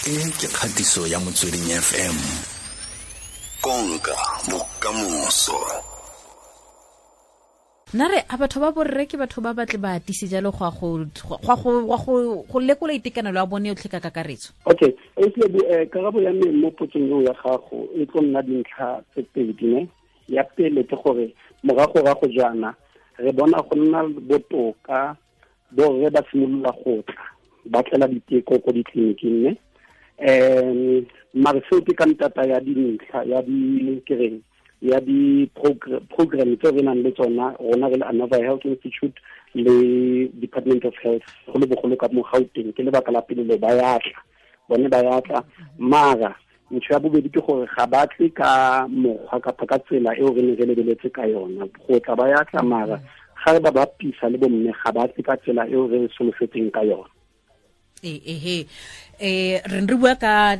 E ke kgatiso ya Motsweding FM. Konka bokamoso. Nna re a batho ba borre ke batho ba batle ba atise jalo go go lekola itekanelo ya bone yotlhe ka kakaretso. Okay, karabo ya me mo potsong eo ya gago e tlo nna dintlha tse pedi ne. Ya pele ke gore morago-rago jaana re bona go nna botoka, borre ba simolola go tla ba tlela diteko ko ditleliniking ne. Mare seo ke ka ntata ya dintlha ya di kereng ya di-program tse re nang le tsona rona re le Anova Health Institute le Department of Health go le bogolo ka mo Gauteng. Ke lebaka la pele le ba ya tla, bone ba ya tla. Mara ntho ya bobedi ke gore ga ba tle ka mokgwa kapa ka tsela eo re ne re lebeletse ka yona. Go tla ba ya tla, mara ga re ba bapisa le bomme ga ba tle ka tsela eo re solofetseng ka yona. Ehe, re re bua ka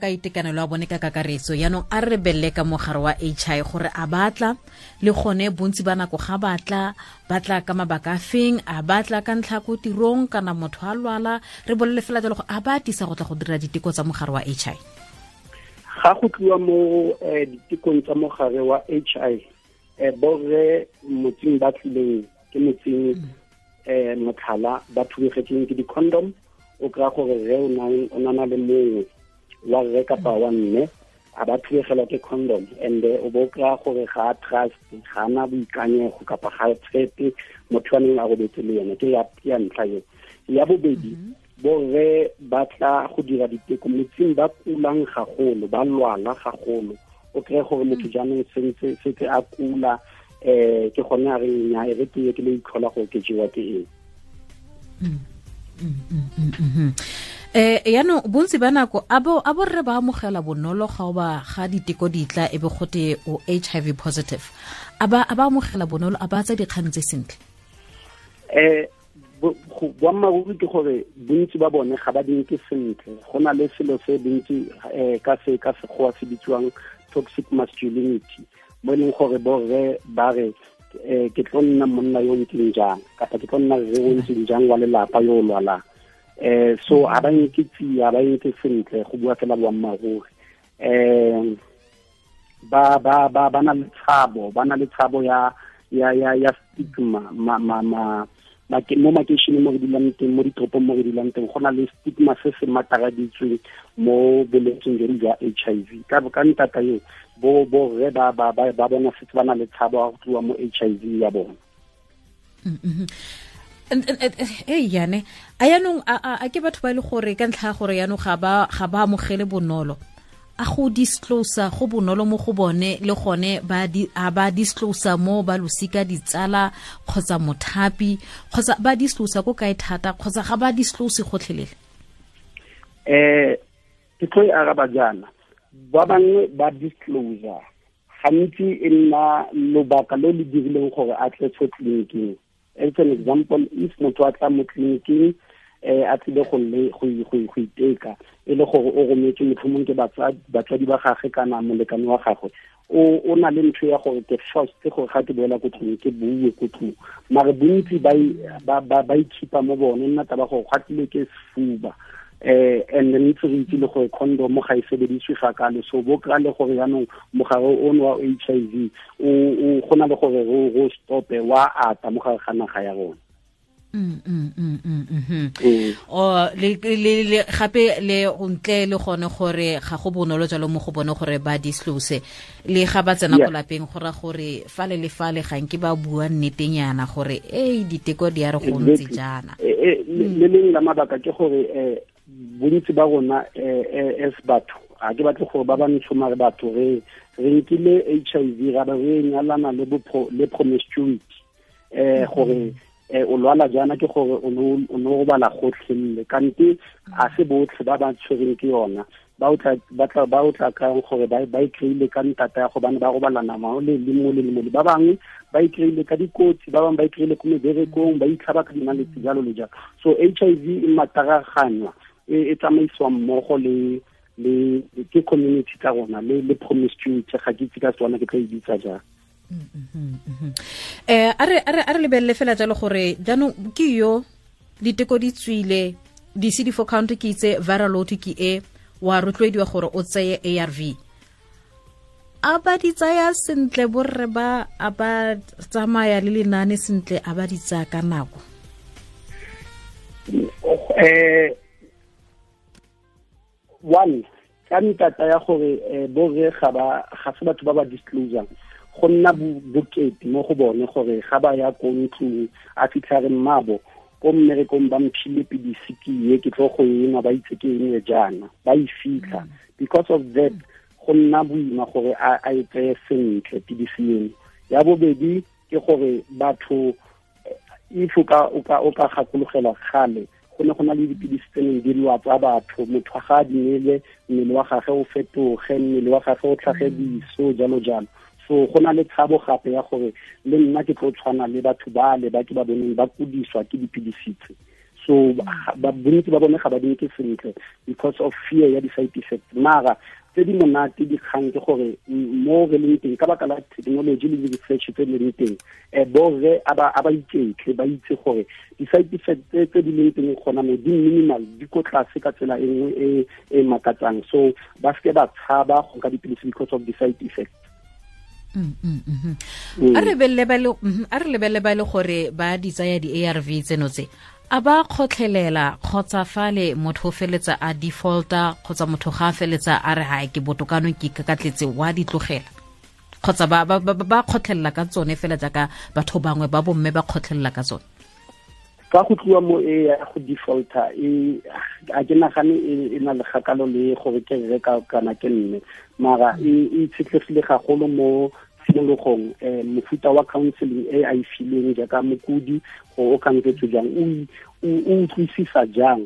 itekanelo ya bone ka kakaretso. Yaanong a re belle ka mogare wa HIV gore a batla le gone bontsi ba nako ga batla, batla ka mabaka a feng, a batla ka ntlha ko tirong kana motho a lwala. Re bolele fela jalo gore a ba atisa go tla go dira diteko tsa mogare wa HIV. Ga go tliwa mo ditekong tsa mogare wa HIV, borre motseng ba tlileng ke motseng motlhala ba thubegetseng ke di-condom, o kry-a gore re o nana le mongwe wa rre kapa wa mme a ba thubegelwa ke condom, and o bo kry-a gore ga a trust, ga ana boikanyego kapa ga a tshepe motho wa neng a robetse le yone. Ke ya ntlha eo. Ya bobedi, borre ba tla go dira diteko motseng ba kulang gagolo, ba lwala gagolo. O kry-e gore motho jaanong sentse a kula, ke gone a reng nya e re ke ye ke le itlhola gore ke jewa ke eng. Yaanong bontsi ba nako a borre ba amogela bonolo ga o ba ga diteko di tla e be gote o HIV positive. A ba amogela bonolo, a ba tsa dikgang tse sentle? Boammaaruri ke gore bontsi ba bone ga ba di nke sentle. Go na le selo se bontsi ka se ka sekgowa se bitsiwang toxic masculinity, mo e leng gore borre ba re ke tlo nna monna yo ntseng jang kapa ke tlo nna rre yo ntseng jang wa lelapa yo o lwalang. So a ba nke tsia, ba nke sentle go bua fela boammaaruri. Ba ba ba ba na le tshabo, ba na le tshabo ya ya ya ya stigma ma ma ma mo makeisheneng mo re dulang teng, mo ditoropong mo re dulang teng, go na le stigma se se mataraditsweng mo bolwetseng jone jwa HIV. Ka ntata eo, bo borre ba ba ba ba bona setse ba na le tshabo ya go tliwa mo HIV ya bona. Yane a yaanong a ke batho ba e le gore ka ntlha ya gore yaanong ga ba amogele bonolo, a go disclose go bonolo mo go bone, le gone a ba disclose mo ba losika, ditsala kgotsa mothapi, kgotsa ba disclose ko kae thata, kgotsa ga ba disclose gotlhelele? Ke tlo e araba jaana, ba bangwe ba disclose gantsi e nna lobaka lo le dirileng gore a tle fo tleliniking. As an example, if motho a tla mo tleliniking, a tlile go iteka, e le gore o rometswe motlhomong ke batsadi ba gagwe kana molekane wa gagwe, o na le ntho ya gore ke first gore ga ke boela ko tlung ke bue ko tlung. Mare bontsi ba ikhipa mo bone, nna taba gore gwa tlile ke sefuba. And then ntse re itse le gore condom ga e sebediswe ga kalo, so bo kry-a le gore jaanong mogare ono wa HIV o go na le gore ro stope wa ata mo gare ga naga ya rona. Le gape le ntle le gone gore ga go bonolo jalo mo go bone gore ba disclose le ga ba tsena ko lapeng, go ra gore fale le fale ga nke ba bua nnetenyana gore ei diteko di a re go ntse jaana. Le lengwe la mabaka ke gore bontsi ba rona as batho, ga ke batle gore ba ba ntsho mare batho re nkile HIV ra ba re nyalana le promiscuity, gore o lwala jaana ke gore o no robala gotlhelele, kante a se botlhe ba ba tshwereng ke yona ba o tla kang gore ba e kry-ile ka ntata ya gobane ba robalana mo le le mo le mo le. Ba bangwe ba e kry-ile ka dikotsi, ba bangwe ba e kry-ile ko meberekong, ba itlhaba ka dinaletse jalo le jalo. So HIV e mataraganywa, e tsamaisiwa mmogo le ke community tsa rona le promiscuity. Ga ke itse ka Setswana ke tla e bitsa jang. A re lebelele fela jalo gore jaanong ke yo diteko di tswile, di-CD4 count ke itse, viral load ke e, wa rotloediwa gore o tseye ARV. A ba di tsaya sentle borre ba, a ba tsamaya le lenane sentle, a ba di tsaya ka nako? One, ka ntata ya gore borre ga se batho ba ba disclosang, go nna bokete mo go bone gore ga ba ya ko ntlong a fitlha re mmabo ko mmerekong ba mphile pidisi ke ye ke tlo go enwa, ba itse ke eng jaana, ba e fitlha. Because of that, go nna boima gore a e tseye sentle pidisi eno. Ya bobedi ke gore batho, if o ka gakologela kgale, go ne go na le dipidisi tse neng di lwatsa batho, motho ga a di nele mmele wa gagwe o fetoge, mmele wa gagwe o tlhage diso, jalo jalo. So go na le tshabo gape ya gore le nna ke tlo tshwana le batho ba le ba ke ba boneng ba kudiswa ke dipidisi tse. So bontsi ba bone ga ba di nke sentle because of fear ya di-side effects. Mara tse di monate dikgang ke gore mo re leng teng ka baka la technology le di-research tse di leng teng, borre a ba iketle, ba itse gore di-side effects tse di leng teng gona mo di minimal, di ko tlase ka tsela e nngwe e makatsang. So ba seke ba tshaba go nka dipilisi because of the-side effects. A re lebelele ba le gore ba di tsaya di-ARV tseno tse, a ba kgotlhelela kgotsa fale motho o feletsa a defaulta, kgotsa motho ga a feletsa a re ha ke botokano ke kakatletse wa di tlogela, kgotsa ba kgotlhelela ka tsone fela jaaka batho bangwe ba bomme ba kgotlhelela ka tsone? Ka go tliwa mo e ya go defaulta, a ke nagane e na le kgakalo le gore ke rre kana ke mme, mara e itshetlegile gagolo mo tshimologong, mofuta wa counseling e a e fileng jaaka mokudi, gore o khansetswe jang, o utlwisisa jang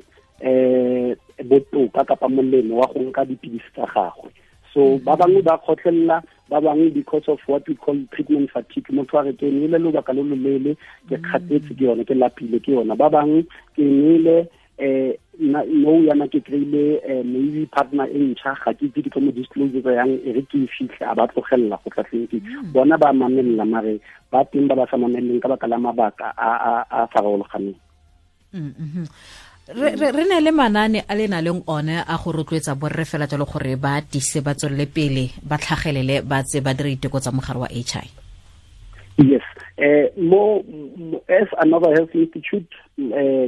botoka kapa molemo wa go nka dipidisi tsa gagwe. So ba bangwe ba kgotlhelela, ba bangwe because of what we call treatment fatigue, motho a re ke nwele lobaka lo loleele, ke kgathetse ke yone, ke lapile ke yona. Ba bangwe ke nwele no yana ke kry-ile maybe partner e ntšha, ga ke itse ke tlo mo disclose yang, e re ke e fitlhe, a ba tlogelela go tla tleliniking. Bona ba mamelela, mare ba teng ba ba sa mameleleng ka baka la mabaka a farologaneng. Re ne le manane a le na leng one a go rotloetsa borre fela jalo gore ba tise, ba tswelele pele, ba tlhagelele, ba tse ba dire diteko tsa mogare wa HI. Yes, mo as Anova Health Institute,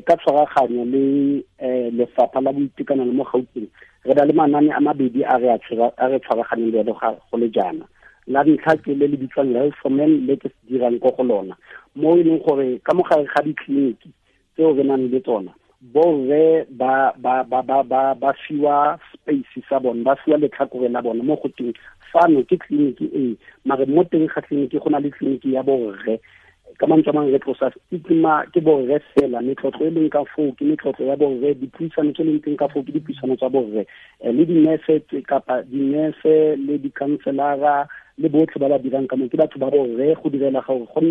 ka tshwaraganyo le lefapha la boitekanelo mo Gauteng, re na le manane a mabedi a re tshwaraganeng le go le jaana. La ntlha ke le le bitswang Health for Men, le ke se dirang ko go lona, mo e leng gore ka mogare ga ditleliniki tseo re nang le tsona, borre ba fiwa space sa bone, ba fiwa letlhakore la bone mo go teng fano ke tleliniki e, mare mo teng ga tleliniki go na le tleliniki ya borre. Ka mantswe a mangwe re tlosa stigma, ke borre fela, metlotlo e leng ka foo ke metlotlo ya borre, dipuisano tse leng teng ka foo ke dipuisano tsa borre, le dinese kapa dinese le di-counselara le botlhe ba ba dirang ka moo ke batho ba borre, go direla gore go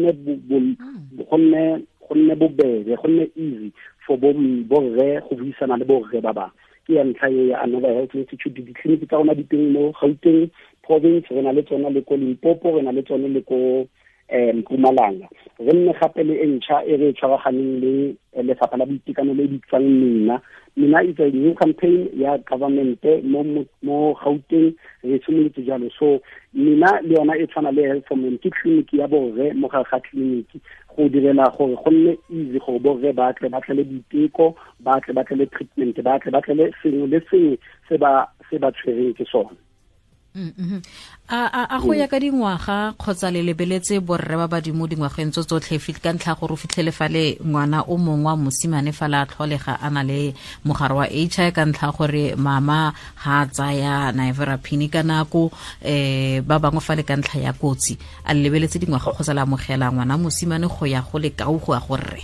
nne bobebe, go nne easy for borre go buisana le borre ba bangwe. Ke ya ntlha e ya Anova Health Institute. Ditleliniki tsa rona di teng mo Gauteng province, re na le tsona le ko Limpopo, re na le tsone le ko Mpumalanga. Re nne gape le e ntšha e re tshwaraganeng le lefapha la boitekanelo le bitswang Mina. Mina is a new campaign ya government mo Gauteng, re simolotse jalo. So Mina le yona e tshwana le Health for Men, ke tleliniki ya borre mo gare ga tleliniki, go direla gore go nne easy gore borre ba tle ba tlele diteko, ba tle ba tlele treatment, ba tle ba tlele sengwe le sengwe se ba tshwereng ke sone. A go ya ka dingwaga kgotsa le lebeletse borre ba badimo dingwageng tso tsotlhe ka ntlha gore o fitlhele fale ngwana o mongwe wa mosimane fale a tlholega a na le mogare wa HI ka ntlha gore mama ga a tsaya nevirapine ka nako, ba bangwe fale ka ntlha ya kotsi. A le lebeletse dingwaga kgotsa le amogela ngwana mosimane go ya go lekau go ya go rre?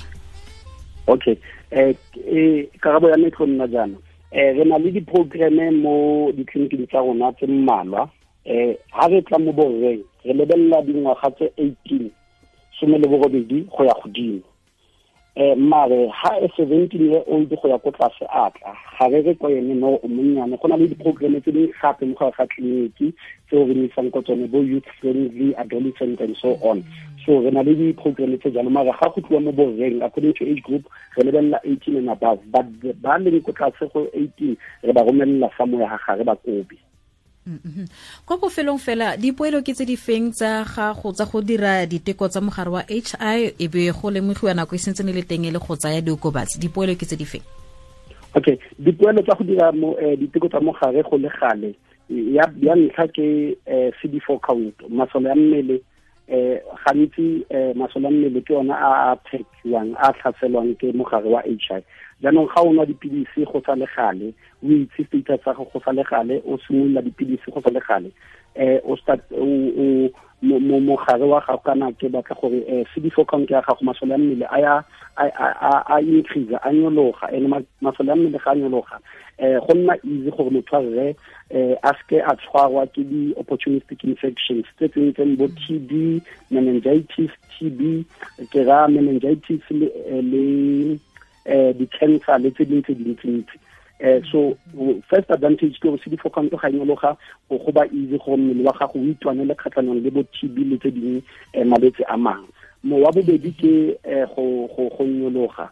Okay, karabo ya me tlo nna jaana. Re na le di-programme mo ditleliniking tsa rona tse mmalwa. Ha re tla mo borreng, re lebelela dingwaga tse 18, 18 go ya godimo. Mare ha e 17-year-old go ya ko tlase a tla ga re re ko ene no o monnyane, go na le di-programme tse dingwe gape mo gare ga tleliniki tseo re isang ko tsone, bo youth friendly, adolescent and so on. So re na le di-programme tse jalo, mare ga go tliwa mo borreng according to age group re lebelela 18 and above, but ba leng ko tlase go 18 re ba romelela somewhere ga gare ba kobe. Kwa bofelong fela, dipoelo ke tse di feng tsa gago tsa go dira diteko tsa mogare wa HI e be go lemogiwa nako e sentse ne le teng e le go tsaya diokobatsi? Dipoelo ke tse di feng? Okay, dipoelo tsa go dira diteko tsa mogare go le gale, ya ntlha ke CD4 count, masole a mmele. Gantsi masole a mmele ke ona a phekiwang, a tlhaselwang ke mogare wa HI. Jaanong ga o nwa dipilisi go sa le gale, o itse status sa gago go sa le gale, o simolola dipilisi go sa le gale, o start o mogare wa gago, kana ke batla gore CD4 count ya gago, masole a mmele a ya a increase, a nyologa, ene masole a mmele ga a nyologa, go nna easy gore motho a rre a seke a tshwarwa ke di-opportunistic infections tse tsentseng bo TB, meningitis, TB ke ra meningitis le di-cancer le tse dingwe tse dintsintsi. So first advantage ke gore CD4 count ga nyologa, go ba easy gore mmele wa gago o itwanele kgatlhanong le bo TB le tse dingwe malwetse a mangwe. Mo wa bobedi ke go nyologa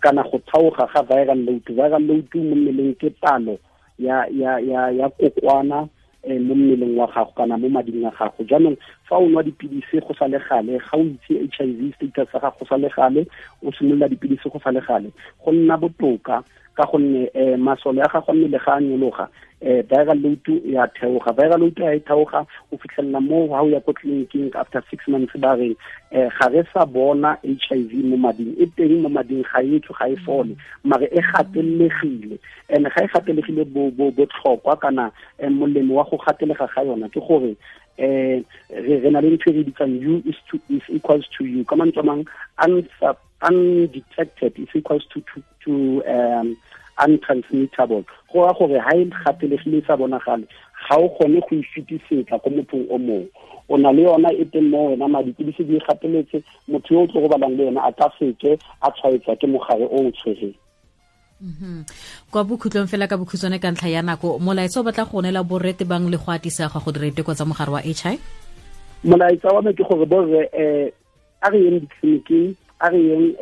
kana go thaoga ga viral load. Viral load mo mmeleng ke palo ya ya ya ya kokwana mo mmeleng wa gago kana mo mading a gago. Jaanong fa o nwa dipilisi go sa le gale, ga o itse HIV status sa gago go sa le gale, o simolola dipilisi go sa le gale, go nna botoka ka gonne masole a gago a mmele ga a nyologa, viral load ya theoga. Viral load ya e theoga, o fitlhelela mo ha o ya ko tleliniking after 6 months ba reng ga re sa bona HIV mo mading, e teng mo mading, ga e tswe, ga e fole, mare e gatelegile. And ga e gatelegile botlhokwa kana molemo wa go gatelega ga yona ke gore re na le ntho e re bitsang U is to is equals to U, ka mantswe a mang undetected is equals to untransmittable. Go ra gore ha e gatelegile e sa bonagale, ga o kgone go e fetisetsa ko mothong o mongwe. O na le yona e teng mo wena, madi dipilisi di gateletse, motho yo o tlo go balang le yena a ka seke a tshwaetswa ke mogare o o tshwereng. Kwa bokhutlong fela ka bokhutshwane ka ntlha ya nako, molaetsa o batla go neela borre tebang le go atisa ga go dira diteko tsa mogare wa HI? Molaetsa wa me ke gore borre a re yeng ditleliniking, a re yeng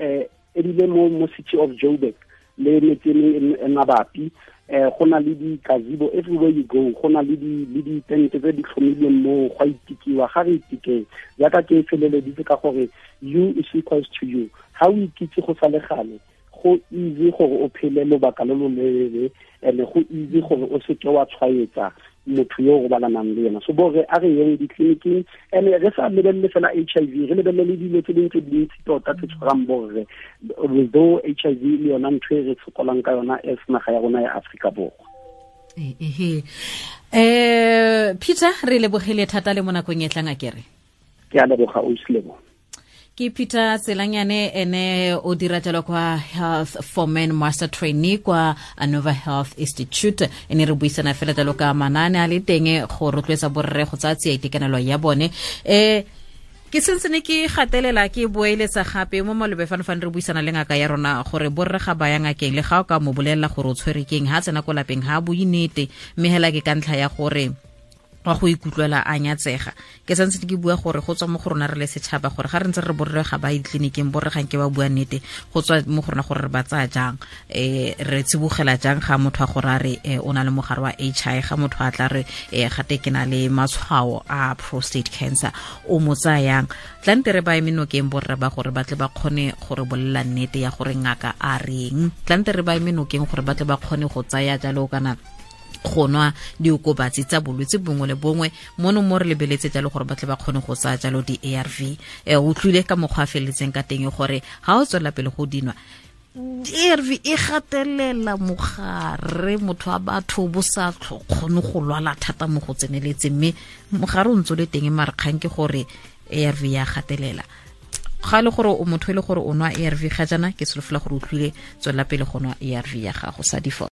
ebile mo City of Joburg le metse e mabapi, go na le di-gazebo everywhere you go, go na le ditente tse di tlhomilweng moo go a itekiwa. Ga re itekeng jaaka ke feleleditse ka gore U is equals to U. Ga o ikitse go sa le gale, go easy gore o phele lobaka lo lo leele, and go easy gore o seke wa tshwaetsa motho yo o robalanang le yena. So borre a re yeng ditleliniking, and re sa lebelele fela HIV, re lebelele dilo tse dingwe tse dintsi tota tse tshwarang borre, although HIV le yona ntho e re sokolang ka yona as naga ya rona ya Afrika Borwa. Peter, re lebogile thata le mo nakong e tlang a kere. Ke a leboga, ausi Lebo. Ke Peter Tselanyane, ene o dira jalo kwa Health for Men Master Trainee kwa Anova Health Institute. Ene re buisana fela jalo ka manane a le teng go rotloetsa borre go tsaya tsia itekanelo ya bone. Ke sentse ne ke gatelela ke boeletsa gape mo malobe fano fane re buisana le ngaka ya rona gore borre ga ba ya ngakeng, le ga o ka mo bolelela gore o tshwere keng, ha tsena ko lapeng ha bue nnete, mme hela ke ka ntlha ya gore wa go ikutlwela a nyatsega. Ke santse ke bua gore go tswa mo go rona re le setšhaba, gore ga re ntse re borre ga ba ditleliniking, borre ga nke ba bua nnete, go tswa mo go rona gore re ba tsaya jang, re tsibogela jang ga motho a gore a re o na le mogare wa HI, ga motho a tla re gate ke na le matshwao a prostate cancer, o mo tsaya yang. Tlante re ba eme nokeng borre ba gore ba tle ba kgone gore bolela nnete ya gore ngaka a reng. Tlante re ba eme nokeng gore ba tle ba kgone go tsaya jalo kana go nwa diokobatsi tsa bolwetse bongwe le bongwe mono mo re lebeletse jalo gore ba tle ba kgone go tsaya jalo di-ARV. O utlwile ka mokgwa a feleletseng ka teng gore ga o tswelela pele go dinwa ARV e gatelela mogare, motho wa batho bo sa kgone go lwala thata mo go tseneletseng, mme mogare o ntse o le teng, mare kgang ke gore ARV ya gatelela. Ga le gore o motho e le gore o nwa ARV ga jaana, ke solofela gore o utlwile, tswelela pele go nwa ARV ya gago sa default.